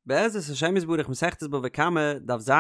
בעזרת השם יתברך מסכת בבא קמא, דף ז,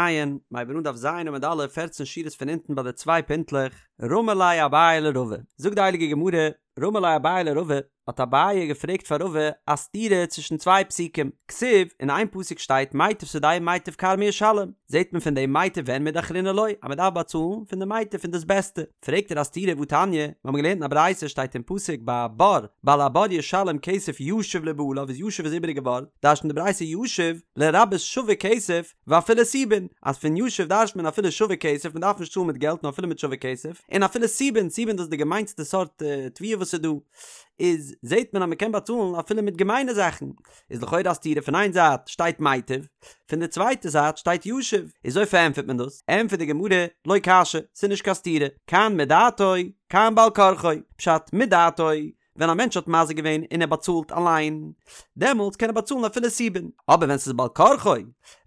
מ'הייבן אן דף ז עמוד א', פערצן שורות פון אונטן ביי די צוויי פינטלעך, רמי ליה אביי לרבא, זאגט די הייליגע גמרא, רמי ליה אביי לרבא, האט אביי געפרעגט פאר רבא א סתירה צווישן צוויי פסוקים, כתיב, אין איין פסוק שטייט מיטב שדהו מיטב כרמו ישלם, זעט מען פון דעם מיטב אין מידי אחרינא לא, אז מען דארף באצאלן פון די מיטב פון דאס בעסטע, פרעגט ער א סתירה והתניא, מיר האבן געלערנט אין א ברייתא שטייט אין פסוק ביי א בור, בעל הבור ישלם כסף ישיב לבעליו איז ישיב איז איבעריגע ווארט, דרש'נט די ברייתא ישיב לרבות שווה כסף ואפילו סובין, אז פון ישיב דרש'נט מען אפילו שווה כסף מען דארף נישט צאלן מיט געלט נאר אפילו מיט שווה כסף, און אפילו סובין, סובין דאס איז די געמיינסטע סארט תבואה וואס איז דא, איז זעט מען אז מען קען באצאלן אפילו מיט געמיינע זאכן, איז לכאורה א סתירה פון איין זייט שטייט מיטב, פון די צווייטע זייט שטייט ישיב, איז אזוי פארענטפערט מען דאס? ענטפערט די גמרא, לא קשיא, ס'איז נישט קיין סתירה, כאן מדעתו, כאן בעל כרחו, פשט, מדעתו, ווען א מענטש האט מזיק געווען און ער באצאלט אליין, דעמאלטס קען ער באצאלן אפילו סובין, אבער ווען ס'איז בעל כרחו,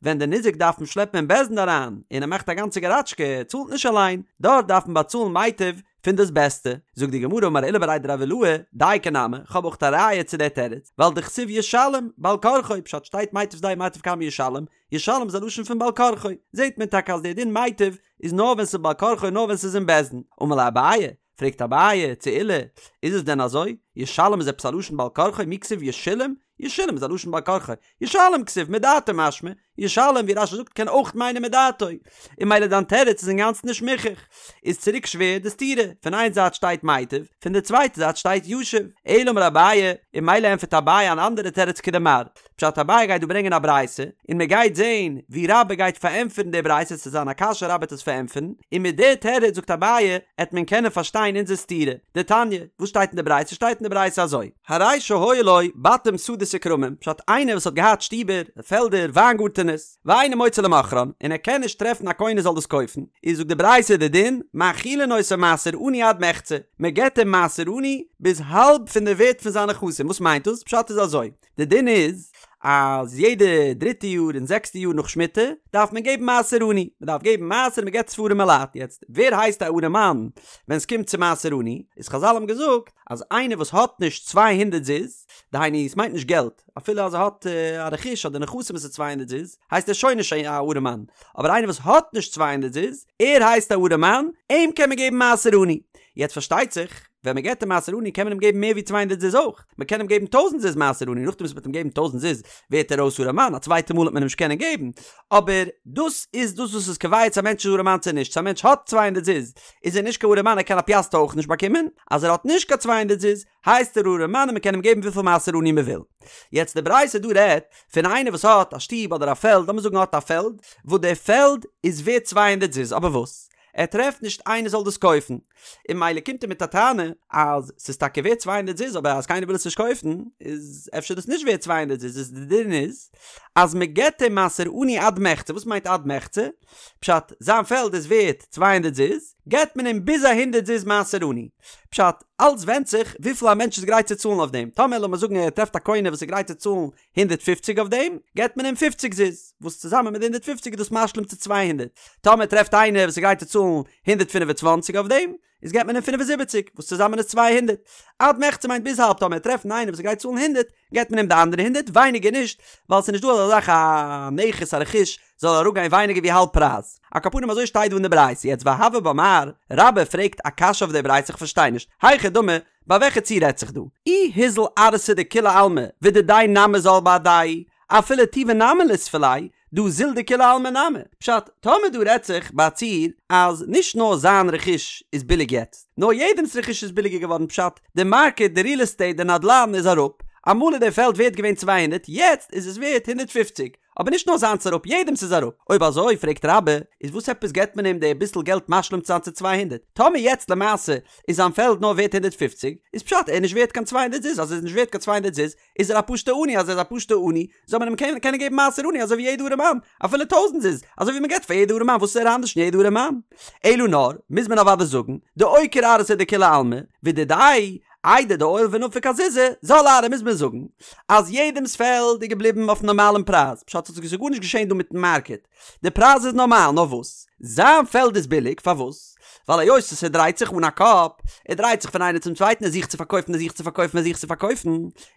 ווען די ניזק דארף אים שלעפן אין בית דין אריין, און ער מאכט א גאנצע געראטשקע, ער צאלט נישט אליין, דארט דארף מען באצאלן מיטב, פון דאס בעסטע, זאגט די גמרא אמר עולא בריה דרב עילאי, דייקא נמי, כ'האב אויך א ראיה צו דער תירוץ, ווייל דכתיב ישלם, בעל כרחו, פשט שטייט מיטב שדהו מיטב כרמו ישלם, ישלם איז א לשון פון בעל כרחו, זעט מען טאקע אז דער דין מיטב איז נאר ווען ס'איז בעל כרחו נאר ווען ס'איז אין בית דין, אמר ליה אביי, פרעגט אביי צו עולא, איז עס דען אזוי? ישלם איז עפעס א לשון בעל כרחו? מי כתיב ישולם? ישולם איז א לשון בעל כרחו, ישלם כתיב מדעתו משמע, ישלם ווי רש"י זאגט קען אויך מיינען מדעתו, און ממילא דיין תירוץ איז אינגאנצן נישט מוכח. איז צוריק שווער די סתירה, פון איין זייט שטייט מיטב, פון די צווייטע זייט שטייט ישיב. אלא אמר אביי, און ממילא ענטפערט אביי אן אנדערע תירוץ כדמר. פשט אביי גייט דא ברענגען א ברייתא, און מען גייט זעהן ווי רבה גייט פארענטפערן די ברייתא, ס'עט זיין א קשיא רבה עט עס פארענטפערן, און מיט די תירוץ זאגט אביי עט מען קענען פארשטיין אונזער סתירה. דתניא, וואס שטייט אין די ברייתא? שטייט אין די ברייתא אזוי. הרי שהיו לו בתים שדות וכרמים, פשט איינער וואס האט געהאט שטיבער, פעלדער, וויינגארטענעס, ואינו מוצא למוכרן, און ער קען נישט טרעפן א קונה זאל דאס קויפן, איז זאגט די ברייתא די דין, מאכילין אותו מעשר עני עד מחצה, מען געבט אים מעשר עני ביז האלב פון די ווערט פון זיינע נכסים, וואס מיינט דאס? פשט איז אזוי, די דין איז אז יעדע דריטע יאר און זעקסטע יאר נאך שמיטה דארף מען געבן מעשר עני, מען דארף געבן מעשר מען געבט עס פאר ארימע לייט, יעצט ווער הייסט א ארעמאן ווען עס קומט צו מעשר עני, איז חזל האבן געזאגט אז איינער וואס האט נישט 200 זוז, דהיינו עס מיינט נישט געלט, אפילו אז ער האט א רכוש אדער נכסים וואס איז 200 זוז, הייסט ער שוין נישט א ארעמאן, אבער איינער וואס האט נישט 200 זוז, ער הייסט א ארעמאן, אים קען מען געבן מעשר עני. יעצט פארשטייט זיך, ווען מען געבט אים מעשר עני קען מען אים געבן מער ווי 200 זוז אויך, מען קען אים געבן טויזנט זוז מעשר עני, נאכדעם וואס מען וועט אים געבן טויזנט זוז ווערט ער אויס ארעמאן, א צווייטע מאל וועט מען אים נישט קענען געבן, אבער דאס איז דאס וואס איז קובע צו א מענטש איז ארעמאן צו נישט, צו א מענטש האט 200 זוז איז ער נישט קיין ארעמאן ער קען א פיאסטער אויך נישט באקומען, אז ער האט נישט קיין צוויי הונדערט זוז הייסט ער ארעמאן און מען קען אים געבן וויפיל מעשר עני מען וויל. יעצט די ברייתא דא רעדט פון איינער וואס האט א שטוב אדער א פעלד, לאמיר זאגן ער האט א פעלד וואס די פעלד איז ווערט צוויי הונדערט זוז אבער וואס? ער טרעפט נישט איינער זאל דאס קויפן, און ממילא קומט ער מיט א טענה אז ס'איז טאקע ווערט צוויי הונדערט זוז אבער אז קיינער וויל עס נישט קויפן איז אפשר דאס נישט ווערט צוויי הונדערט זוז איז די דין איז אז מען געבט אים מעשר עני עד מחצה, וואס מיינט עד מחצה? פשט, זיין פעלד איז ווערט צוויי הונדערט זוז, געבט מען אים ביז א הונדערט זוז מעשר עני. פשט, אלץ ווענדט זיך וויפיל א מענטש איז גרייט צו צאלן אויף דעם, טאמער לאמיר זאגן ער טרעפט א קונה וואס איז גרייט צו צאלן הונדערט פופציג אויף דעם, געבט מען אים פופציג זוז, וואס צוזאמען מיט די הונדערט פופציג איז דאס משלים צו צוויי הונדערט. טאמער טרעפט איינער וואס איז גרייט צו צאלן הונדערט פינף און צוואנציג אויף דעם, איז געבט מען אים פינף און זיבעציג, וואס צוזאמען איז צוויי הונדערט. עד מחצה מיינט ביז האלב, טאמער טרעפט איינער וואס איז גרייט צו צאלן הונדערט, געבט מען אים די אנדערע הונדערט, ווייניגער נישט, ווייל ס'איז נישט דא אזא זאך א נכס א רכוש זאל אראפגיין ווייניגער ווי האלב פרייז. על כל פנים אזוי שטייט דא אין די ברייתא. יעצט והוה בה מר, רבה פרעגט א קשיא אויף די ברייתא איך פארשטיי נישט, היכי דמי, ביי וועלכע ציור רעדט זיך דא? אי הוזל ארעתא דכולי עלמא ודידיה נמי זל בהדיה, אפילו טובא נמי ליספי ליה, דהא זיל דכולי עלמא נמי. פשט, טאמער דא רעדט זיך ביי א ציור אז נישט נאר זיין רכוש איז ביליג יעצט, נאר יעדעמס רכוש איז ביליגער געווארן פשט, די מארקעט, די ריעל עסטעיט, די נדלן איז אראפ, אמאל איז די פעלד ווערט געווען 200 יעצט איז עס ווערט 150, אבער נישט נאר זיינס אראפ יעדעמס איז אראפ, אויב אזוי פרעגט רבה, איז וואס עפעס געבט מען אים די ביסל געלט משלים צו זיין צו 200, טאמער יעצט למעשה איז זיין פעלד נאר ווערט 150, איז פשט ער איז נישט ווערט קיין 200 זוז, אז ער איז נישט ווערט קיין 200 זוז איז ער א פשוטע עני, אז ער איז א פשוטע עני זאל מען אים קענען קענען געבן מעשר עני אזוי ווי יעדע ארעמאן, אפילו טויזנט זוז, אזוי ווי מען געבט פאר יעדע ארעמאן, וואס איז ער אנדערש פון יעדע ארעמאן? אלא נאר, מוז מען אוודאי זאגן, דאוקיר ארעתא דכולי עלמא, ודידיה, איידי דעייל ונפיק אזוזי, זל ארעא מוז מען זאגן, אז יעדעמס פעלד איז געבליבן אויפן נארמאלן פרייז, פשט ס'איז גארנישט געשען דא מיטן מארקעט, די פרייז איז נארמאל, נאר וואס? זיין פעלד איז ביליג, פארוואס? ווייל היות עס ער דרייט זיך אן א קאפ, ער דרייט זיך פון איינער צום צווייטן ער זוכט צו פארקויפן ער זוכט צו פארקויפן ער זוכט צו פארקויפן,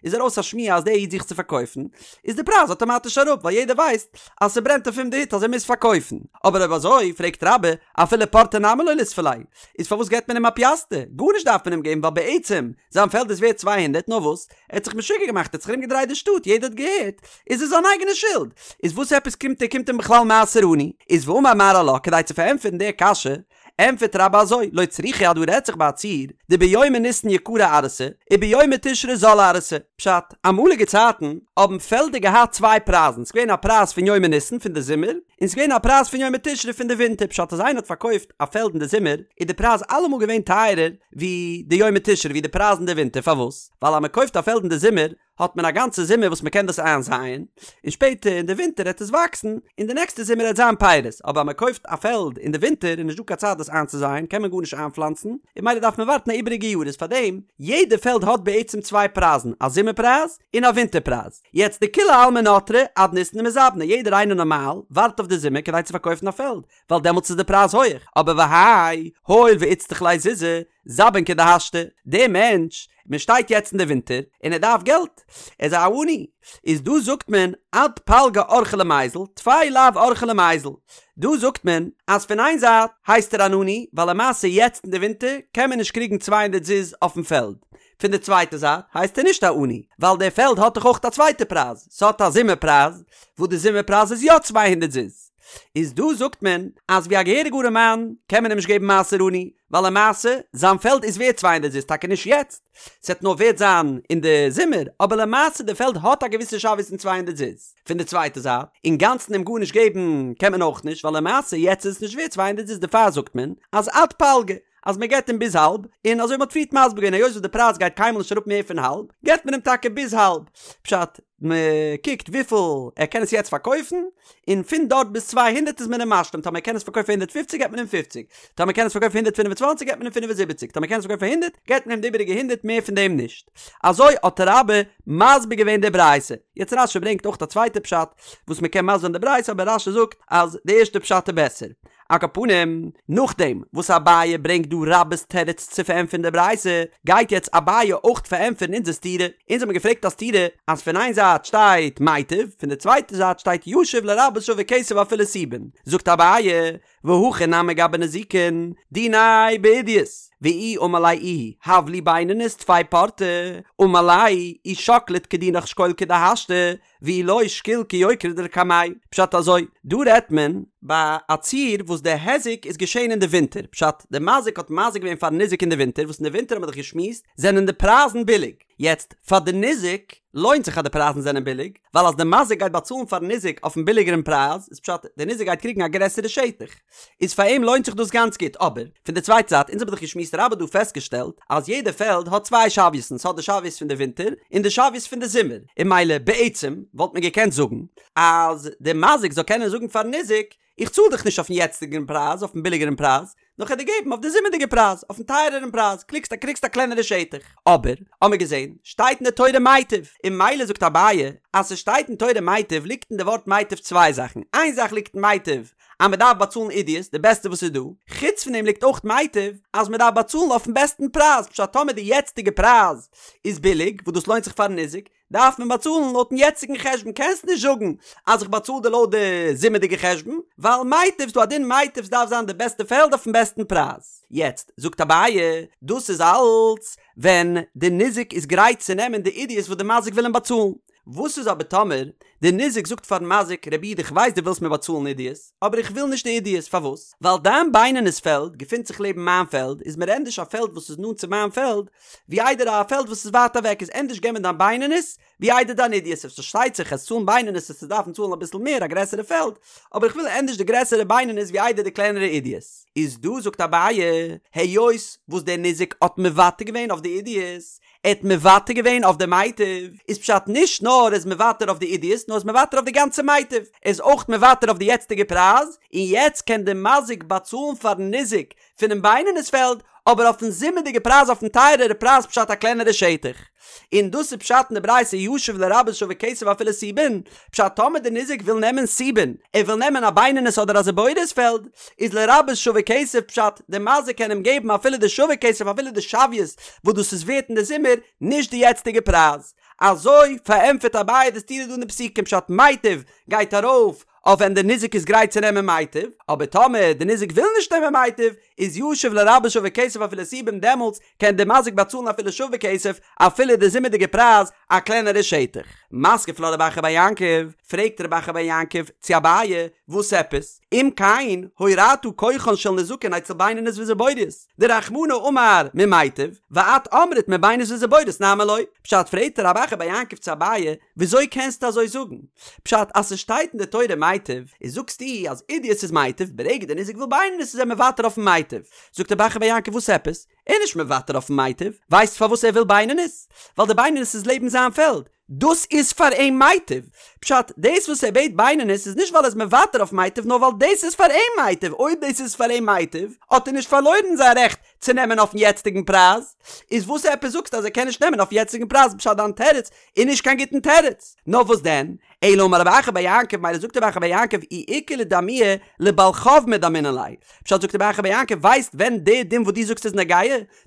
איז ארויס א שמועה אז דער איד זוכט צו פארקויפן, איז די פרייז אטאמאטיש אראפ ווייל יעדער ווייסט אז ס'ברענט אויף אים די הוט אז ער מוז פארקויפן. אבער אויב אזוי, פרעגט רבה, אפילו פורתא נמי לא ליספו ליה, איז פארוואס געבט מען אים א פיאסטער? גארנישט דארף מען אים געבן ווייל בעצם זיין פעלד איז ווערט 200 נאר וואס? ער האט זיך משוגע געמאכט ער האט זיך ארום געדרייט די שטאט יעדער האט געהערט איז עס זיין אייגענע שולד איז וואס עפעס קומט ער קומט אים בכלל מעשר עני? איז ואמר מר עלה כדי צו פארענטפערן די קשיא ענטפערט רבה אזוי לא צריכא אז דא רעדט זיך ביי א ציור דביומי ניסן יקרא ארעתא וביומי תשרי זלא ארעתא פשט אמאליגע צייטן האבן פעלדער געהאט צוויי פרייזן ס'איז געווען א פרייז פון יומי ניסן פון די זומער און ס'איז געווען א פרייז פון יומי תשרי פון די ווינטער פשט אז איינער האט פארקויפט א פעלד אין די זומער איז די פרייז אלעמאל געווען טייערער ווי די יומי תשרי ווי די פרייז אין די ווינטער פארוואס? ווייל אז מען קויפט א פעלד אין די זומער האט מען א גאנצע זומער וואס מען קען דאס איינזייען און שפעטער אין די ווינטער העט עס וואקסן און די נעקסטע זומער העט זיין פירות אבער אז מען קויפט א פעלד אין די ווינטער איז נישט דא קיין צייט דאס איינצוזייען קען מען גארנישט איינפלאנצן און ממילא דארף מען ווארטן א איבעריגע יאר איז פארדעם יעדע פעלד האט בעצם צוויי פרייזן א זומער פרייז און א ווינטער פרייז יעצט דכולי עלמא נטרי עד ניסן דמזבני יעדער איינער נארמאל ווארט אויף די זומער כדי צו פארקויפן א פעלד ווייל דעמאלטס איז די פרייז הויעך, אבער והאי, הואיל ואיצטריך ליה זוזי, זבין כדהשתא, דער מענטש, מען שטייט יעצט אין די ווינטער, און ער דארף געלט, ער איז א עני, איז דא זאגט מען עד פלגא אורחיה למיזל, טפי לאו אורחיה למיזל, דא זאגט מען אז פון איין זייט הייסט ער אן עני, ווייל למעשה יעצט אין די ווינטער קען מען נישט קריגן צוויי הונדערט זוז אויפן פעלד, פון די צווייטע זייט הייסט ער נישט א עני, ווייל דער פעלד האט דאך אויך א צווייטע פרייז, ס'האט א זומער פרייז, וואס די זומער פרייז איז יא צוויי הונדערט זוז. איז דא זאגט מען אז ווי א געהעריגע ארעמאן קען מען אים נישט געבן מעשר עני, ווייל למעשה זיין פעלד איז ווערט צוויי הונדערט זוז טאקע נישט יעצט, ס'וועט נאר ווערט זיין אין די זומער, אבער למעשה די פעלד האט א געוויסע שוויות פון צוויי הונדערט זוז. פון די צווייטע זייט, אינגאנצן אים גארנישט געבן קען מען אויך נישט, ווייל למעשה יעצט איז עס נישט ווערט צוויי הונדערט זוז דערפאר זאגט מען אז עד פלגא, אז מען געבט אים ביז האלב, און אזוי ווי מען האט פריערט מסביר געווען היות וואס די פרייז גייט קיינמאל נישט אראפ מער פון האלב, געבט מען אים טאקע ביז האלב, פשט, מען קוקט וויפיל ער קען עס יעצט פארקויפן, און פון דארט ביז 200 איז מען אים משלים, טאמער ער קען עס פארקויפן פאר הונדערט פופציג געבט מען אים פופציג, טאמער ער קען עס פארקויפן פאר הונדערט פינף און צוואנציג געבט מען אים פינף און זיבעציג, טאמער ער קען עס פארקויפן פאר הונדערט געבט מען אים די איבעריגע הונדערט מער פון דעם נישט. אזוי האט רבה מסביר געווען די ברייתא. יעצט רשי ברענגט אויך א צווייטע פשט וואס מען קען מסביר זיין די ברייתא אבער רשי זאגט אז די ערשטע פשט איז בעסער. על כל פנים, נאכדעם וואס אביי ברענגט דא רבה'ס תירוץ צו פארענטפערן די ברייתא, גייט יעצט אביי אויך פארענטפערן אונזער סתירה. אונז האבן געפרעגט א סתירה אז פון איין זייט שטייט מיטב, פון די צווייטע זייט שטייט ישיב לרבות שווה כסף אפילו סובין. זאגט אביי, והכא נמי גבי נזיקין, דיניה בעידית, ואי אמר ליה איהו הב לי בינונית טפי פורתא, אמר ליה אי שקלת כדינך שקול כדהשתא, ואי לא שקיל כיוקרא דלקמיה. פשט אזוי, דא רעדט מען ביי א ציור וואס די היזק איז געשען אין די ווינטער, פשט, די מזיק האט מזיק געווען פארן ניזק אין די ווינטער, וואס אין די ווינטער האט מען דאך געשמועסט זענען די פרייזן ביליג, יעצט פאר די ניזק לוינט זיך אז די פרייזן זענען ביליג, ווייל אז די מזיק גייט באצאלן פארן ניזק אויפן ביליגערן פרייז, איז פשט, די ניזק גייט קריגן א גרעסערע שטח. איז פאר אים לוינט זיך דאס גאנץ גוט, אבער, פון די צווייטע זייט, אונז האבן דאך געשמועסט רבה האט דא פעסטגעשטעלט, אז יעדע פעלד האט צוויי שוויות'ן, ס'האט די שוויות פון די ווינטער, און די שוויות פון די זומער, און ממילא בעצם וואלט מען געקענט זאגן, אז די מזיק זאל קענען זאגן פארן ניזק, איך צאל דיך נישט אויפן יעצטיגן פרייז, אויפן ביליגערן פרייז, נאר כ'על דיר געבן אויף די זומערדיגע פרייז, אויפן טייערערן פרייז, קריגסט א קריגסט א קלענערע שטח. אבער, האמיר געזען, שטייט אין די תורה מיטב, און ממילא זאגט אביי, אז ס'שטייט אין תורה מיטב ליגט אין די ווארט מיטב צוויי זאכן, איין זאך ליגט אין מיטב, אז מען דארף באצאלן עידית, די בעסטע וואס איז דא, חוץ פון דעם ליגט אויך מיטב אז מען דארף באצאלן אויפן בעסטן פרייז, פשט טאמער די יעצטיגע פרייז איז ביליג, וואס דאס לוינט זיך פארן ניזק, דארף מען באצאלן לויטן יעצטיגן חשבון, קענסט נישט זאגן אז איך באצאל דיר לויט די זומערדיגע חשבון, ווייל מיטב ס'דא א דין מיטב ס'דארף זיין די בעסטע פעלד אויפן בעסטן פרייז. יעצט זאגט אביי, דאס איז אלץ ווען די ניזק איז גרייט צו נעמען די עידית וואס די מזיק וויל אים באצאלן, וואס איז אבער טאמער די ניזק זאגט פארן מזיק, רבי איד איך ווייס דו ווילסט מיר באצאלן עידית, אבער איך וויל נישט די עידית, פארוואס? ווייל דיין בינונית פעלד געפינט זיך לעבן מיין פעלד, איז מיר ענדערש א פעלד וואס איז נאנט צו מיין פעלד, ווי איידער א פעלד וואס איז ווייט אוועק, איז ענדערש געב מיר דיין בינונית, ווי איידער דיין עידית, עס פארשטייט זיך אז צאלן בינונית וועסטו דארפן צאלן אביסל מער א גרעסערע פעלד, אבער איך וויל ענדערש די גרעסערע בינונית ווי איידער די קלענערע עידית. איז דא זאגט אביי, היות וואס דער ניזק האט מוותר געווען אויף די עידית, ער האט מוותר געווען אויף די מיטב, איז פשט נישט נאר ער איז מוותר אויף די עידית, זיבורית נאר איז מוותר אויף די גאנצע מיטב, ער איז אויך מוותר אויף די יעצטיגע פרייז, און יעצט קען די מזיק באצאלן פארן ניזק פונעם בינונית פעלד, אבער אויפן זומערדיגע פרייז אויפן טייערערע פרייז פשט א קלענערע שטח. און דאס איז פשט אין די ברייתא ישיב לרבות שווה כסף אפילו סובין, פשט טאמער די ניזק וויל נעמען סובין, ער וויל נעמען א בינונית אדער א זיבורית פעלד, איז לרבות שווה כסף פשט די מזיק קען אים געבן אפילו די שווה כסף אפילו די שוויות וואס דאס איז ווערט אין די זומער, נישט די יעצטיגע פרייז. אזוי פארענטפערט אביי די סתירה דא אין די פסוקים פשט מיטב גייט ארויף אויף ווען די ניזק איז גרייט צו נעמען מיטב, אבער טאמער די ניזק וויל נישט נעמען מיטב, איז ישיב לרבות שווה כסף אפילו סובין דעמאלטס קען די מזיק באצאלן אפילו שווה כסף אפילו די זומערדיגע פרייז א קלענערע שטח. מתקיף לה רב אחא בר יעקב, פרעגט רב אחא בר יעקב צו אביי, וואס עפעס? אם כן, הורעת כוחן של נזקין אצל בינונית וזיבורית, דרחמנא אמר ממיטב, ואת אמרת מבינונית וזיבורית נמי לא. פשט פרעגט רב אחא בר יעקב צו אביי, וויאזוי קענסטו אזוי זאגן? פשט אז ס'שטייט אין די תורה מיטב, איז זאגסטו אז אידי עס איז מיטב, ברגע די ניזק וויל בינונית איז ער מוותר אויפן מיטב. זאגט רב אחא בר יעקב וואס עפעס? ער איז נישט מוותר אויפן מיטב, ווייסט פארוואס ער וויל בינונית? ווייל די בינונית איז לעבן זיין פעלד, דאס איז פאר אים מיטב. פשט, דאס וואס ער בעט בינונית איז נישט ווייל ער איז מוותר אויף מיטב נאר ווייל דאס איז פאר אים מיטב, אויב דאס איז פאר אים מיטב האט ער נישט פארלוירן זיין רעכט צו נעמען אויפן יעצטיגן פרייז, איז וואס עפעס זאגסטו אז ער קען נישט נעמען אויפן יעצטיגן פרייז פשט דיין תירוץ איז נישט קיין גוטן תירוץ. נאר וואס דען? אלא אמר רב אחא בר יעקב מילא זאגט רב אחא בר יעקב אי איכא לאדמויי לבעל חוב מדמינן ליה פשט זאגט רב אחא בר יעקב ווייסט ווען די דין וואס דו זאגסט איז נוגע?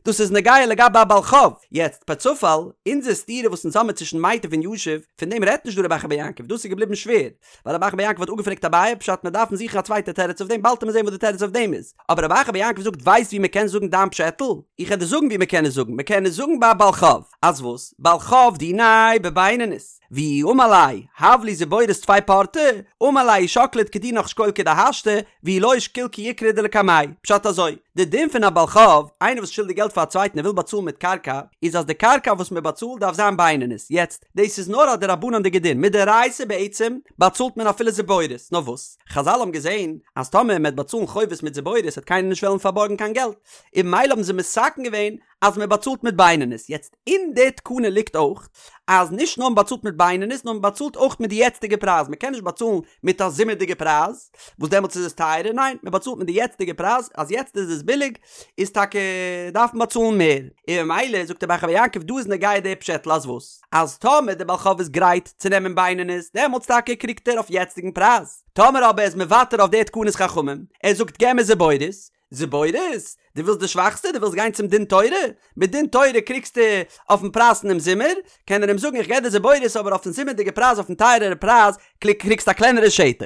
דאס איז נוגע לגבי א בעל חוב. יעצט פערצופאל, אונזער סתירה וואס אונז האמיר צווישן מיטב און ישיב, פון דעם רעדט נישט דא רב אחא בר יעקב, דאס איז געבליבן שווער, ווייל רב אחא בר יעקב האט אפגעפרעגט אביי פשט מיר דארפן זוכן א צווייטע תירוץ אויף דעם באלד עמיר זען וואס די תירוץ אויף דעם איז, אבער רב אחא בר יעקב זאגט ווייסט ווי מען קען זאגן דיין פשעטל? איך וועל דיר זאגן ווי מען קען עס זאגן, מען קען עס זאגן ביי א בעל חוב, אז וואס? בעל חוב דיניה בבינונית, ואי אמר ליה, הב לי זיבורית טפי פורתא, אמר ליה אי שקלת כדינך שקיל כדהשתא, ואי לא שקיל כיוקרא דלקמיה, פשט אזוי, די דין פון א בעל חוב, איינער וואס שולדיג געלט פאר א צווייטן און וויל באצאלן מיט קרקע, איז אז די קרקע וואס מען באצאלט דארף זיין בינונית, יעצט, דאס איז נאר א דרבנן'דיגע דין, מדאורייתא בעצם באצאלט מען אפילו זיבורית, נאר וואס, חזל האבן געזען אז טאמער מען וועט באצאלן חובות מיט זיבורית וועט קיינער נישט וועלן פארבארגן קיין געלט, און ממילא האבן זיי מתקן געווען אז מען באצאלט מיט בינונית, יעצט אין די תקנה ליגט אויך אז נישט נאר מען באצאלט מיט בינונית נאר מען באצאלט אויך מיט די יעצטיגע פרייז, מען קען נישט באצאלן מיט א זומערדיגע פרייז וואס דעמאלטס איז עס טייערער, ניין מען באצאלט מיט די יעצטיגע פרייז, אז יעצט איז עס ביליג איז טאקע דארף מען באצאלן מער, און ממילא זאגט רב אחא בר יעקב דא איז נוגע די פשעטל אז וואס? אז טאמער די בעל חוב איז גרייט צו נעמען בינונית דעמאלטס טאקע קריגט ער אויף יעצטיגן פרייז, טאמער אבער ער איז מוותר אויף די תקנת חכמים, ער זאגט געב מיר זיבורית, זיבורית? דו ווילסט די שוואכסטע? דו ווילסט גיין צום דין תורה? מיט דין תורה קריגסטו אויפן פרייז פונעם זומער, קען ער אים זאגן איך געב דיר זיבורית אבער אויפן זומערדיגע פרייז אויפן טייערערע פרייז קריגסטו א קלענערע שטח.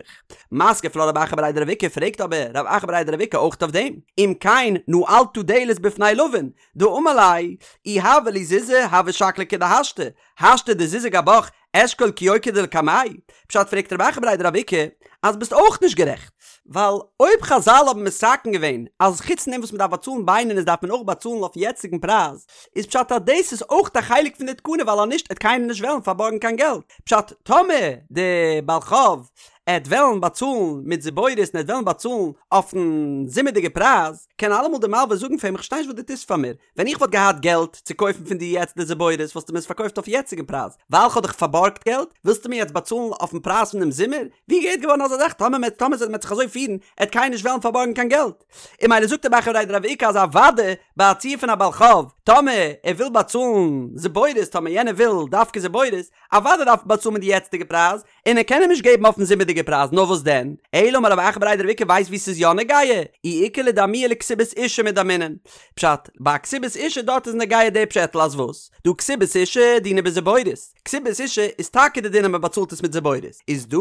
מתקיף לה רב אחא בריה דרב איקא פרעגט אבער רב אחא בריה דרב איקא אויך אויף דעם, אם כן נעלת דלת בפני לווין, דאמר ליה, אי הוה לי זוזי הוה שקלי כדהשתא, השתא דזוזי גבך אשקול כיוקרא דלקמיה, פשט פרעגט רב אחא בריה דרב איקא אז ביסט אויך נישט גערעכט, ווייל אויב חזל האבן מתקן געווען אז חוץ פון דעם וואס מ'דארף באצאלן בינונית דארף מען אויך באצאלן אויפן יעצטיגן פרייז, איז פשט אז דאס איז אויך א חלק פון די תקנה ווייל אז נישט עט קיינער נישט וועלן פארבארגן קיין געלט, פשט טאמער די בעל חוב עט וועלן באצאלן מיט זיבורית און עט וועלן באצאלן אויפן זומערדיגע פרייז, קען אלעמאל די מלווה זאגן פאר אים איך פארשטיי נישט וואס דו טוסט פאר מיר, ווען איך וואלט געהאט געלט צו קויפן פון דיר יעצט די זיבורית וואלסטו מיר עס פארקויפט אויף יעצטיגן פרייז, ווייל כ'האב דיך פארבארגט געלט ווילסטו מיר יעצט באצאלן אויפן פרייז פון דעם זומער? ווי געהערט געווארן אזא זאך? טאמער מען טאמער מען וועט זיך אזוי פירן עט קיינער נישט וועלן פארבארגן קיין געלט. און ממילא זאגט רב אחא בריה דרב איקא אז אוודאי ביי א ציור פון א בעל חוב טאמער ער וויל באצאלן זיבורית טאמער יענער וויל דווקא זיבורית אוודאי דארף מען באצאלן מיט די יעצטיגע פרייז, און ער קען אים נישט געבן אויפן זומערדיגע פרייז, נאר וואס דען? אלא אמר רב אחא בריה דרב איקא ווייסט וואו ס'איז יא נוגע? אי איכא לאדמויי לכתובת אשה מדמינן. פשט, ביי א כתובת אשה דארט איז נוגע די פשעטל אז וואס? דהא כתובת אשה דינה בזיבורית. כתובת אשה איז טאקע די דין אז מ'באצאלט עס מיט זיבורית. איז דא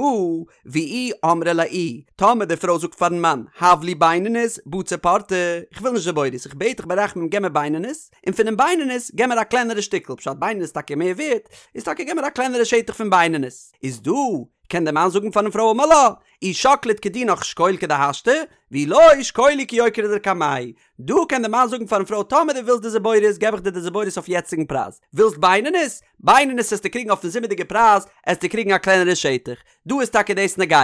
ואי אמרה ליה איהי, טאמער די פרוי זאגט פארן מאן, הב לי בינונית, בצר פורתא, איך וויל נישט זיבורית, איך בעט דיך ברחמים געב מיר בינונית, און פונעם בינונית געב מיר א קלענערע שטיקל, פשט בינונית איז טאקע מער ווערט, איז טאקע געב מיר א קלענערע שטח פון בינונית. איז דא, קען דער מאן זאגן פארן פרוי אמר לה, אי שקלת כדינך שקול כדהשתא, ואי לא שקולי כיוקרא דלקמיה. דא קען די מאן זאגן פארן פרוי טאמער דו ווילסט די זיבורית געב איך דיר די זיבורית אויף יעצטיגן פרייז, ווילסט בינונית? בינונית עסטו קריגן אויפן זומערדיגע פרייז, עסטו קריגן א קלענערע שטח. דא איז טאקע דאס נוגע.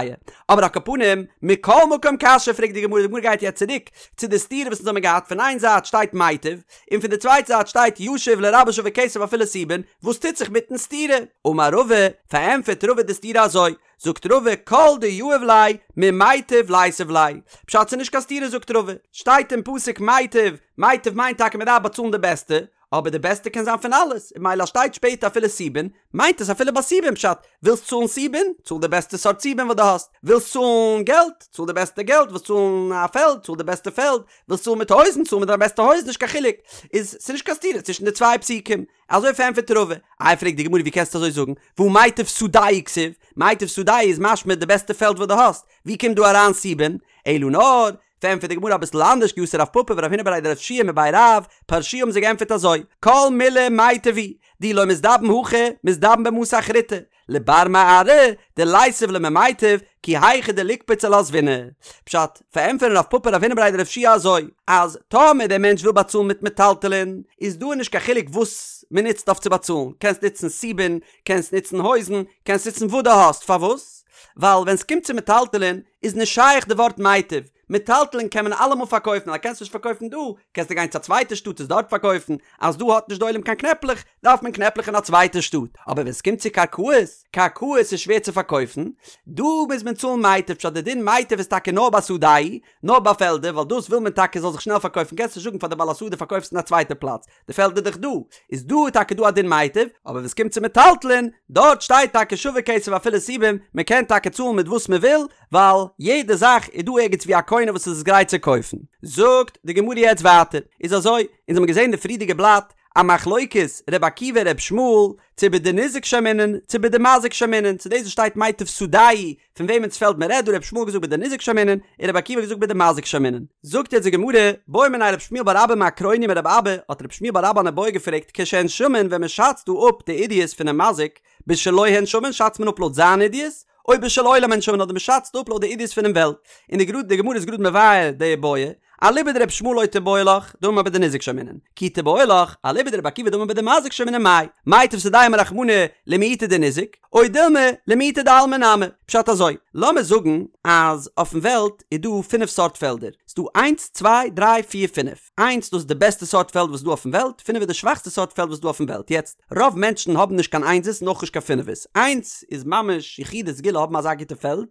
אבער על כל פנים, מכל מקום קשיא פרעגט די גמרא, די גמרא גייט יעצט צוריק צו די סתירה וואס אונז האבן געהאט, פון איין זייט שטייט מיטב, און פון די צווייטע זייט שטייט ישיב לרבות שווה כסף אפילו סובין, וואס טוט זיך מיטן סתירה? אמר רבא, פארענטפערט רבא די סתירה אזוי, זאגט רבא כל דיהיב ליה ממיטב ליתיב ליה, פשט ס'איז נישט קיין סתירה זאגט רבא, שטייט אין פסוק מיטב, מיטב מיינט טאקע מ'דארף באצאלן די בעסטע, אבער די בעסטע קען זיין פון אלעס, און ממילא אז שטייט שפעטער אפילו סובין, מיינט עס אפילו ביי סובין פשט, ווילסט צאלן סובין, צאל די בעסטע סארט סובין וואס דו האסט, ווילסט צאלן געלט, צאל די בעסטע געלט, ווילסט צאלן א פעלד, צאל די בעסטע פעלד, ווילסט צאלן מיט הויזן, צאל מיט דיין בעסטע הויזן, נישט קיין חילוק, איז ס'איז נישט קיין סתירה צווישן די צוויי פסוקים. אזוי פארענטפערט רבא. איי פרעגט די גמרא ווי קענסטו אזוי זאגן, והא מיטב שדהו כתיב, מיטב שדהו איז משמע די בעסטע פעלד וואס דו האסט, ווי קומט דא אריין סובין? אלא נאר, פארענטפערט די גמרא אביסל אנדערש כי אתא רב פפא ורב הונא בריה דרב יהושע מבי רב, פרשוה האבן זיי געענטפערט אזוי, כל מילי מיטב הוא, דאי לא מזדבן הכא, מזדבן במתא אחריתי, לבר מארעא דליתיב ליה ממיטב, כי היכי דליקפוץ עלה זבינא. פשט, פארענטפערן רב פפא רב הונא בריה דרב יהושע אזוי, אז טאמער דער מענטש וויל באצאלן מיט מטלטלין, איז דא נישט קיין חילוק וואס מען נוצט אויף צו באצאלן, קענסט נוצן סובין, קענסט נוצן הויזן, קענסט נוצן וואס דו האסט, פארוואס? ווייל ווען ס'קומט צו מטלטלין איז נישט שייך די ווארט מיטב, מטלטלין קען מען אלעמאל פארקויפן, אז קענסט נישט פארקויפן דא, קענסטו גיין צו א צווייטע שטאט עס דארט פארקויפן, אז דא האט נישט די עולם קיין קנעפלעך, דארף מען קנעפלעך אין א צווייטע שטאט, אבער ווען ס'קומט צו קרקעות, קרקעות איז שווער צו פארקויפן, דא מוז מען צאלן מיטב, פשט די דין מיטב איז טאקע נאר ביי שדהו, נאר ביי פעלדער, ווייל דאס וויל מען טאקע זאל זיך שנעל פארקויפן, קענסט נישט זאגן פאר די בעל השדה פארקויף עס אין א צווייטע פלאץ, די פעלד איז דאך דא, איז דא טאקע דא א דין מיטב, אבער ווען ס'קומט צו מטלטלין, דארט שטייט טאקע שווה כסף אפילו סובין, מען קען טאקע צאלן מיט וואס מען וויל, ווייל יעדע זאך איז דא ערגעץ ווי א קונה וואס איז עס גרייט צו קויפן. זאגט די גמרא יעצט ווייטער, איז אזוי, אונז האבן געזען די פריערדיגע בלאט, א מחלוקת ר' עקיבא ר' ישמעאל, צו בדניזק שיימינן, צו בדמזיק שיימינן, צו דאס וואס שטייט מיטב שדהו, פון וועמענס פעלד מען רעדט דא, ר' ישמעאל האט געזאגט בדניזק שיימינן, און ר' עקיבא האט געזאגט בדמזיק שיימינן. זאגט יעצט די גמרא, בעא מיניה רב שמואל בר אבא מאקרוניא מרבי אבא, האט רב שמואל בר אבא אן איבעיא געפרעגט כשהן שמין ווען מען שאצט דא אפ די עידית פונעם מזיק, בשלו הן שמין שאצט מען אפ לויט זיין עידית, או בשל עולם הן שמין אדער מען שאצט אפ לויט די עידית פונעם וועלט, און די גראד די גמרא איז גראד מבאר די איבעיא, אליבא דרבי ישמעאל לא תיבעי לך, דאמר בדניזק שיימינן, כי תיבעי לך, אליבא דרבי עקיבא דאמר בדמזיק שיימינן מאי, מיטב שדהו אמר רחמנא למעוטי דניזק, או דילמא למעוטי דעלמא נמי, פשט אזוי, לאמיר זאגן אז אויפן וועלט איז דא פינף סארט פעלדער, ס'דא איינס צוויי דריי פיר פינף, איינס דאס איז די בעסטע סארט פעלד וואס איז דא אויפן וועלט, פינף איז די שוואכסטע סארט פעלד וואס איז דא אויפן וועלט, יעצט רוב מענטשן האבן נישט קיין איינזעס און אויך נישט קיין פינפערס, איינס איז ממש יחידי סגולה האבן אזא גוטע פעלד,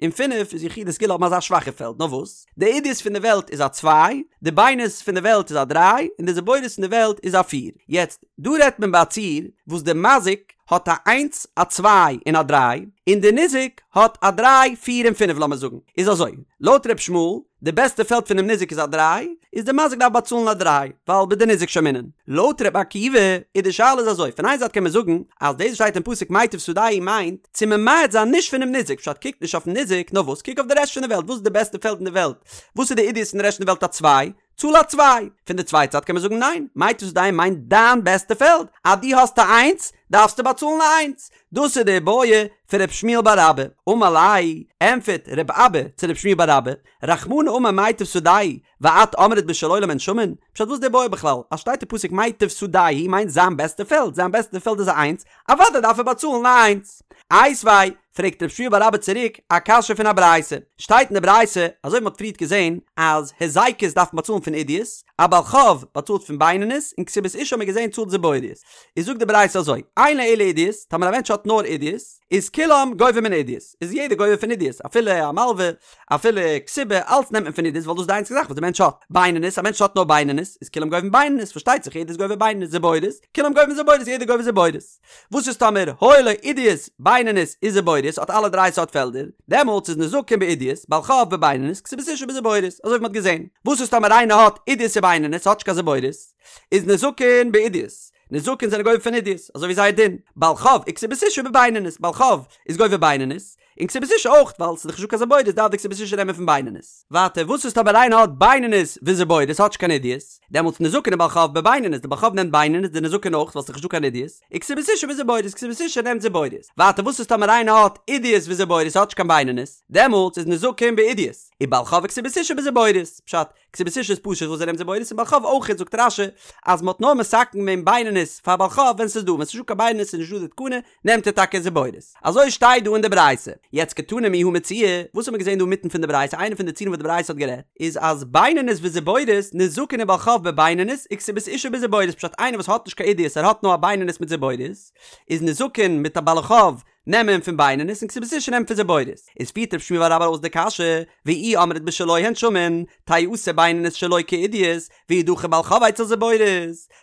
און פינף איז יחידי סגולה האבן אזא שוואכע פעלד, נאר וואס? די עידית פון די וועלט איז א צוויי, די בינונית פון די וועלט איז א דריי, און די זיבורית פון די וועלט איז א פיר. יעצט, דא רעדט מען ביי א ציור וואס די מזיק האט א איינס, א צוויי, און א דריי, און די ניזק האט א דריי, פיר און פינף לאמיר זאגן. איז אזוי, לויט ר' ישמעאל, די בעסטע פעלד פונעם ניזק איז א דריי, איז די מזיק דארף באצאלן א דריי, ווייל בדניזק שיימינן. לויט ר' עקיבא איז די שאלה איז אזוי, פון איין זייט קען מען זאגן אז דאס וואס שטייט אין פסוק מיטב שדהו מיינט צו ממעט זיין נישט פונעם ניזק, פשט קוק נישט אויפן ניזק, נאר וואס קוק אויף די רעשט פון די וועלט, וואס איז די בעסטע פעלד אין די וועלט, וואס איז די עידית פון די רעשט פון די וועלט א צוויי, צאל א צוויי. פון די צווייטע זייט קען מען זאגן ניין, מיטב שדהו מיינט דיין בעסטע פעלד, אז דו האסט א איינס, דארפסטו באצאלן א איינס. דאס איז די איבעיא פון ר' שמואל בר אבא. אמר ליה, ענטפערט ר' אבא צו ר' שמואל בר אבא, רחמנא אמר מיטב שדהו, ואת אמרת בשל עולם הן שמין? פשט וואס איז די איבעיא בכלל? אז שטייט אין פסוק מיטב שדהו מיינט זיין בעסטע פעלד, זיין בעסטע פעלד איז א איינס, אוודאי דארף ער באצאלן א איינס. איתיביה, פרעגט רב שמואל בר אבא צוריק א קשיא פון א ברייתא, שטייט אין די ברייתא, אזוי ווי מ'האט פריערט געזען, אז היזקות דארף מען באצאלן פון עידית, א בעל חוב באצאלט פון בינונית, און כתובת אשה האט מען געזען צאלט זיבורית. איז זאגט די ברייתא אזוי, אין לו אלא עידית, טאמער א מענטש האט נאר עידית, איז כולם גובים מן עידית, איז יעדער גובה פון עידית, אפילו א מלווה, אפילו כתובה, אלץ נעמט מען פון עידית ווייל דאס איז די איינציגע זאך וואס די מענטש האט. בינונית, א מענטש האט נאר בינונית, איז כולם גובים בינונית, פארשטייט זיך יעדער איז גובה בינונית, זיבורית, כולם גובים זיבורית, יעדער גובה זיבורית. וואס איז טאמער היו לו עידית, בינונית וזיבורית האט אלע דריי סארט פעלדער, דעמאלטס איז נזקין בעידית, בעל חוב בבינונית, כתובת אשה בזיבורית, אזוי ווי מ'האט געזען. וואס איז טאמער איינער האט עידית ובינונית האט נישט קיין זיבורית, איז נזקין בעידית, נזקין זענען גובה פון עידית, אזוי ווי זייער דין, בעל חוב וכתובת אשה בבינונית, בעל חוב איז גובה בינונית, און כתובת אשה אויך, ווייל ס'איז דאך נישטא קיין זיבורית דארף די כתובת אשה נעמען פון בינונית. ווייטער, וואס איז טאמער איינער האט בינונית וזיבורית האט נישט קיין עידית, דעמאלטס נזקין ובעל חוב בבינונית, די בעל חוב נעמט בינונית, די נזקין אויך, ווייל ס'איז דאך נישטא קיין עידית, וכתובת אשה בזיבורית, כתובת אשה נעמט זיבורית. ווייטער, וואס איז טאמער איינער האט עידית וזיבורית האט נישט קיין בינונית, דעמאלטס איז נזקין בעידית, ובעל חוב וכתובת אשה בזיבורית, פשט, כתובת אשה איז פשוט וואס זי נעמט זיבורית און בעל חוב אויכעט זאגט רש"י אז מ'האט נאר מתקן געווען בינונית פאר בעל חוב ווען ס'איז דא ווען ס'איז נישטא קיין בינונית איז נישטא די תקנה נעמט ער טאקע זיבורית אזוי שטייט דא אין די ברייתא יעצט קתני מיהא מציעא וואס האט מען געזען דא אינמיטן פון די ברייתא איינע פון די ציורים וואס די ברייתא האט גערעדט איז אז בינונית וזיבורית נזקין ובעל חוב בבינונית וכתובת אשה בזיבורית פשט איינער וואס האט נישט קיין עידית ער האט נאר א בינונית מיט זיבורית איז נזקין מיט א בעל חוב נעמען פון בינונית און כתובת אשה נעמט פון זיבורית. איז פירט רב שמואל בר אבא אויס די קשיא, ואי אמרת בשלו הן שמין, תיעשה בינונית שלו כעידית, וידחה בעל חוב אצל זיבורית.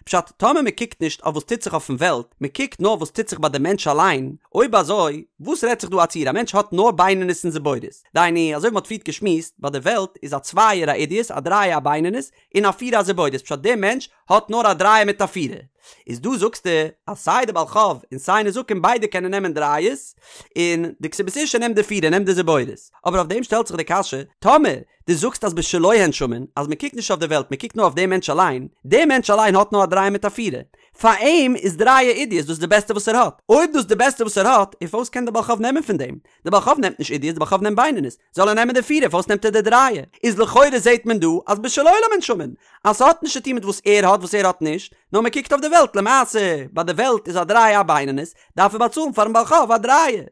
פשט, טאמער מען קוקט נישט אויף וואס טוט זיך אויפן וועלט, מען קוקט נאר וואס טוט זיך ביי די מענטש אליין, אויב אזוי, וואס רעדט זיך דא א ציור א מענטש האט נאר בינונית און זיבורית? דהיינו, אזוי ווי מען האט פריערט געשמועסט, ביי די וועלט איז א צווייער א עידית, א דרייער א בינונית, און א פירער א זיבורית, פשט דער מענטש האט נאר א דרייער מיט א פירער, איז דא זאגסטו אז סיי די בעל חוב און סיי נזקין ביידע קענען נעמען דרייערס, און די כתובת אשה נעמט די פירער נעמט די זיבורית, אבער אויף דעם שטעלט זיך די קשיא, טאמער דו זאגסט אז בשלו הן שמין, אז מען קוקט נישט אויף די וועלט מען קוקט נאר אויף דעם מענטש אליין, דער מענטש אליין האט נאר א דרייער מיט א פירער, פאר אים איז דרייער עידית דאס די בעסטע וואס ער האט, אויב דאס די בעסטע וואס ער האט, און פארוואס קען די בעל חוב נעמען פון דעם? די בעל חוב נעמט נישט עידית די בעל חוב נעמט בינונית, זאל ער נעמען די פירער פארוואס נעמט ער די דרייער? איז לכאורה זעהט מען דא אז בשל עולם הן שמין אז ס'האט נישט צוטון מיט וואס ער האט וואס ער האט נישט, נאר מ'קוקט אויף די וועלט למעשה ביי די וועלט איז א דרייער א בינונית דארף ער באצאלן פארן בעל חוב א דרייער,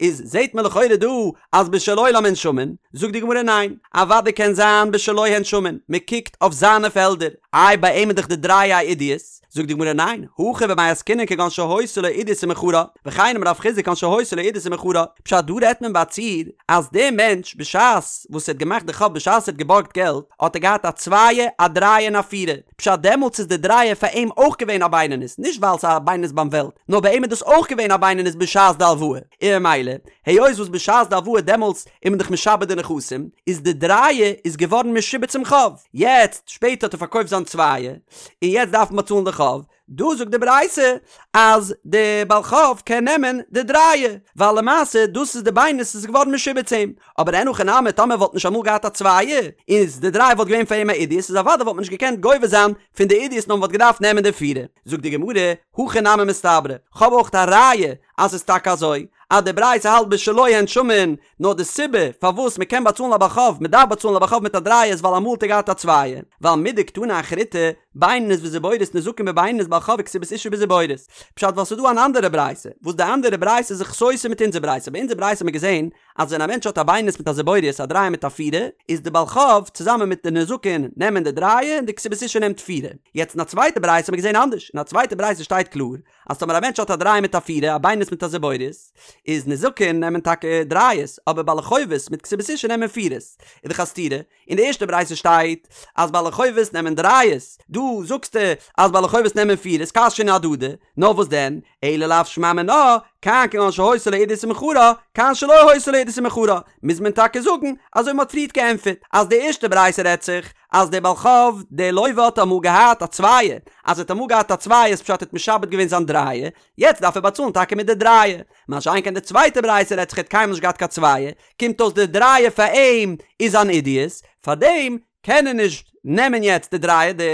איז זעהט מען לכאורה דא אז בשל עולם הן שמין, זאגט די גמרא ניין, אוודאי קען זיין בשלו הן שמין, מ'קוקט אויף זיינע פעלדער, איי ביי אים איז דאך די דרייער א עידית, זאגט די גמרא ניין, הכא במאי עסקינן כגון שהיתה לו עידית ומכרה, וכן אמר רב חסדא כגון שהיתה לו עידית ומכרה, פשט דא רעדט מען ביי א ציור אז דער מענטש בשעת וואס ער האט געמאכט די חוב בשעת ער האט געבארגט געלט האט ער געהאט א צווייע א דרייע און א פירע, פשט דעמאלטס איז די דרייע פאר אים אויך געווען א בינונית נישט ווייל ס'איז א בינונית ביים וועלט נאר ביי אים איז דאס אויך געווען א בינונית בשעת די הלוואה און ממילא היות וואס בשעת די הלוואה דעמאלטס איז מען דאך משעבד די נכסים איז די דרייע איז געווארן משועבד צום חוב יעצט שפעטער האט ער פארקויפט זיין צווייע און יעצט דארף מען באצאלן די חוב, דא זאגט די ברייתא אז די בעל חוב קען נעמען די דרייע, ווייל למעשה דאס איז די בינונית איז געווארן משועבד צו אים, אבער אין הכי נמי טאמער וואלט נישט אמאל געהאט א צווייע, איז די דרייע וואלט געווען פאר אים א עידית, איז אוודאי וואלט מען נישט געקענט גובה זיין פון די עידית נאר מען וואלט געדארפט נעמען די פירע. זאגט די גמרא, הכי נמי מסתברא, כ'האב אויך א ראיה אז ס'איז טאקע אזוי, אז די ברייתא האלט בשלו הן שמין, נאר די סיבה פארוואס מען קען באצאלן א בעל חוב, מען דארף באצאלן א בעל חוב מיט א דרייער איז ווייל אמאל האט ער געהאט א צווייער, ווייל מדקתני אחריתי, בינונית וזיבורית נזקין בבינונית בעל חוב וכתובת אשה בזיבורית. פשט ווייל ס'איז דא אן אנדערע ברייתא, וואס די אנדערע ברייתא איז זיך סותר מיט אונזער ברייתא, ביי אונזער ברייתא האט מען געזען אז ווען א מענטש האט א בינונית מיט א זיבורית א דרייער מיט א פירער, איז די בעל חוב צוזאמען מיט די נזקין נעמען די דרייער און די כתובת אשה נעמט פירער. יעצט אין א צווייטע ברייתא האט מען געזען אנדערש, אין א צווייטע ברייתא שטייט קלאר אז טאמער א מענטש האט א דרייער מיט א פירער, א בינונית מיט א זיבורית, איז נזקין נעמען טאקע דרייערס, אבער בעלי חובות מיט כתובת אשה נעמען פירערס. איז דאך א סתירה, אין די ערשטע ברייתא שטייט אז בעלי חובות נעמען דרייערס, דא זאגסטו אז בעלי חובות נעמען פירערס, קשיין אהדדי, נאר וואס דען, אלא לאו שמע מינה, כאן כגון שהיתה לו עידית ומכרה, כאן שלא היתה לו עידית ומכרה, מוז מען טאקע זאגן אזוי ווי מען האט פריערט געענטפערט, אז די ערשטע ברייתא רעדט זיך אז דער בעל חוב, דער לוה האט אמאל געהאט א צווייער, אז ער האט אמאל געהאט א צווייער איז פשט ער האט משעבד געווען זיין דרייער, יעצט דארף ער באצאלן טאקע מיט די דרייער, מה שאין כן די צווייטע ברייתא רעדט זיך ער האט קיינמאל נישט געהאט קיין צווייער, קומט אויס די דרייער פאר אים איז אן עידית, פארדעם קען ער נישט נעמען יעצט די דרייער, די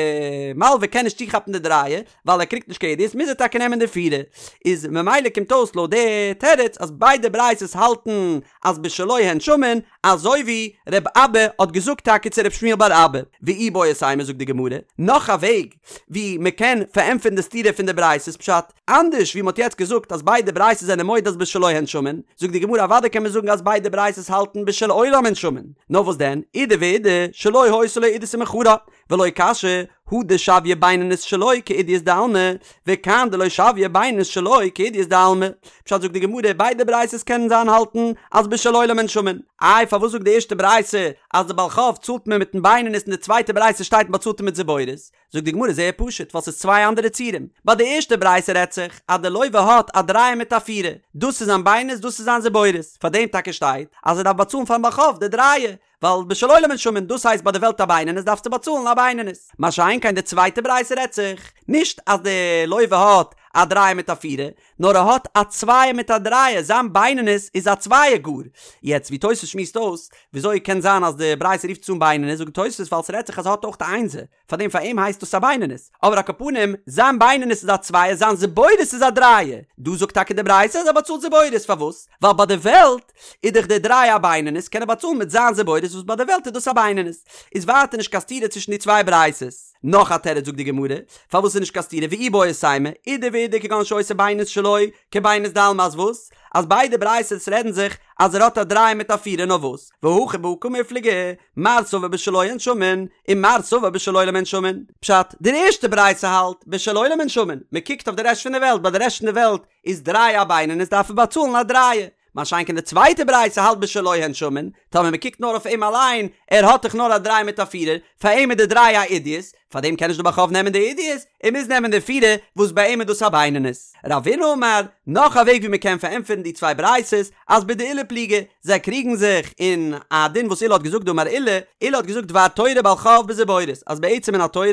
מלווה קען נישט צוכאפן די דרייער, ווייל ער קריגט נישט קיין עידית מוז ער טאקע נעמען די פירער, איז ממילא קומט אויס לויט די תירוץ אז ביידע ברייתות האלטן אז בשלו הן שמין, אזוי ווי ר' אבא האט געזאגט טאקע צו ר' שמואל בר אבא, ואיבעית אימא זאגט די גמרא, נאך א וועג ווי מען קען פארענטפערן די סתירה פון די ברייתות פשט, אנדערש ווי מען האט יעצט געזאגט אז ביידע ברייתות זענען מודה אז בשלו הן שמין, זאגט די גמרא אוודאי קען מען זאגן אז ביידע ברייתות האלטן בשל עולם הן שמין, נאר וואס דען, אידי ואידי, שלא היתה לו עידית ומכרה, ולא קשיא, הא דשויא בינונית שלו כעידית דעלמא, וכאן דלא שויא בינונית שלו כעידית דעלמא. פשט זאגט די גמרא, ביידע ברייתות קענען זיין האלטן אז בשל עולם הן שמין. איי פארוואס זאגט די ערשטע ברייתא אז די בעל חוב צאלט מען מיטן בינונית און די צווייטע ברייתא שטייט מען באצאלט אים מיט זיבורית? זאגט די גמרא זייער פשוט ווייל ס'איז צוויי אנדערע ציורים. ביי די ערשטע ברייתא רעדט זיך אז די לוה האט א דרייער מיט א פירער, דאס איז זיין בינונית דאס איז זיין זיבורית, פארדעם טאקע שטייט אז ער דארף באצאלן פארן בעל חוב די דרייער, ווייל בשל עולם הן שמין, דאס הייסט ביי די וועלט א בינונית דארפסטו באצאלן א בינונית. מה שאין כן די צווייטע ברייתא רעדט זיך נישט אז די לוה האט א דרייער מיט א פירער, נאר ער האט א צווייער מיט א דרייער, זיין בינונית איז א צווייער גאר. יעצט ווי תוס' שמועסט אויס, וויאזוי קען זיין אז די ברייתא רופט עס אן בינונית, זאגט תוס' ווייל ס'רעדט זיך אז ער האט אויך א איינזער, פארדעם פאר אים הייסט דאס א בינונית, אבער על כל פנים, זיין בינונית איז א צווייער, זיין זיבורית איז א דרייער. דא זאגט טאקע די ברייתא אז ער באצאלט זיבורית, פארוואס? ווייל ביי די וועלט איז דאך די דרייער א בינונית, קען ער באצאלן מיט זיין זיבורית וואס ביי די וועלט איז דאס א בינונית. איז ווייטער נישט קיין סתירה צווישן די צוויי ברייתות. נאך א תירוץ זאגט די גמרא, פארוואס איז נישט קיין סתירה ואיבעית אימא, אידי ואידי כגון שהיתה בינונית שלו כבינונית דעלמא אז וואס? אז ביידע ברייתות רעדן זיך אז ער האט א דרייער מיט א פירער נאר וואס? והכא בהא קמיפלגי, מר סבר בשלו הן שמין, און מר סבר בשל עולם הן שמין. פשט, די ערשטע ברייתא האלט, בשל עולם הן שמין, מען קוקט אויף די רעשט פון די וועלט, ביי די רעשט פון די וועלט איז דריי א בינונית דארף ער באצאלן א דרייער, מה שאין כן די צווייטע ברייתא האלט בשלו הן שמין, טאמער מען קוקט נאר אויף אים אליין, ער האט דאך נאר א דריי מיט א פירער, פאר אים איז די דריי א עידית, פאר דעם קען נישט די בעל חוב נעמען די עידית, ער מוז נעמען די פירער, וואס ביי אים איז דאס א בינונית. רבינא אמר, נאך א וועג ווי מען קען פארענטפערן די צוויי ברייתות, אז בדעולא פליגי, זיי קריגן זיך אין א דין וואס עולא האט געזאגט דאמר עולא, עולא האט געזאגט דבר תורה בעל חוב בזיבורית, אז בעצם מן התורה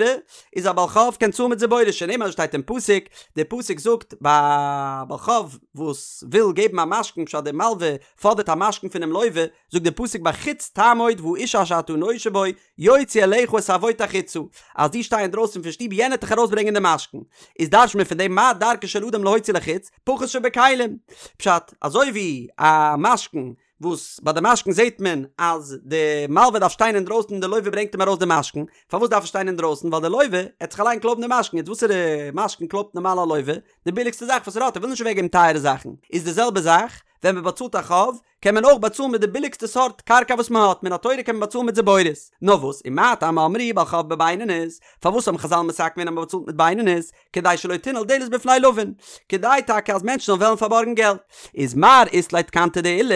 איז א בעל חוב קען צאלן מיט זיבורית, שנאמר אזוי שטייט אין פסוק, דער פסוק זאגט ביי א בעל חוב וואס וויל געבן א משכון פשט דער מלווה פאדערט א משכון פונעם לווה, זאגט דער פסוק בחוץ תעמוד והאיש אשר אתה נושה בו יוציא אליך את העבוט החוצה, אז דו שטיי אינדרויסן פון שטוב יענער וועט דיך ארויסברענגען די משכון, איז דרש'ט מען פון דעם מה דרכו של אדם להוציא לחוץ, פחות שבכלים. פשט, אזוי ווי א משכון וואס ביי די משכון זעט מען אז די מלווה דארף שטיין אינדרויסן און די לווה ברענגט אים ארויס די משכון, פארוואס דארף ער שטיין אינדרויסן? ווייל די לווה עט זיך אליין קלויבן די משכון, יעצט וואסערע משכון קלויבט נארמאל א לווה? די ביליגסטע זאך וואס ער האט, ער וויל נישט אוועקגעבן טייערע זאכן, איז די זעלבע זאך ווען מען באצאלט א חוב, קען מען אויך באצאלן מיט די ביליגסטע סארט קרקע וואס מען האט, מן התורה קען מען באצאלן מיט זיבורית. נאר וואס, ומה טעם אמרו בעל חוב בבינונית, פארוואס האבן חזל מתקן געווען אז מען באצאלט מיט בינונית, כדי שלא תנעול דלת בפני לווין, כדי טאקע אז מענטשן זאלן וועלן פארבארגן געלט. איז מר אית ליה תקנתא דעולא,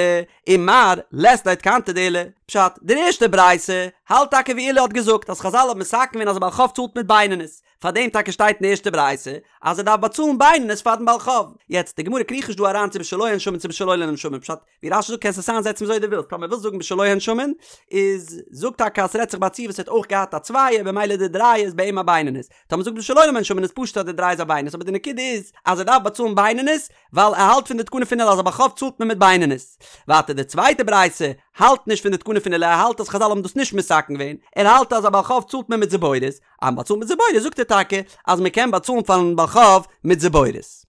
און מר לית ליה תקנתא דעולא. פשט, די ערשטע ברייתא האלט טאקע ווי עולא האט געזאגט אז חזל האבן מתקן געווען אז א בעל חוב צאלט מיט בינונית, פאר דעם טאקע שטייט אין די ערשטע ברייתא אז ער דארף באצאלן בינונית פארן בעל חוב. יעצט, די גמרא קריכט נישט דא אריין צו בשלו הן שמין צו בשל עולם הן שמין, פשט, ווי רש"י זאגט קענסט עס איינזעצן וויאזוי דו ווילסט, טאמער ווילסט זאגן בשלו הן שמין, איז זאג טאקע אז ס'רעדט זיך ביי א ציור וואס ער האט אויך געהאט א צווייער במילא די דרייער איז ביי אים א בינונית, טאמער זאגט בשל עולם הן שמין איז פשוט אז די דריי איז א בינונית, אבער די נקודה איז אז ער דארף באצאלן בינונית ווייל ער האלט פון די תקנה פון עולא אז א בעל חוב צאלט מען מיט בינונית. ווייטער די צווייטע ברייתא האלט נישט פון די תקנה פון עולא ער האלט אז חזל האבן דאס נישט מתקן געווען, ער האלט אז א בעל חוב צאלט מען מיט זיבורית, אז מען באצאלט מיט זיבורית זאגט ער טאקע אז מען קען באצאלן פארן בעל חוב מיט זיבורית.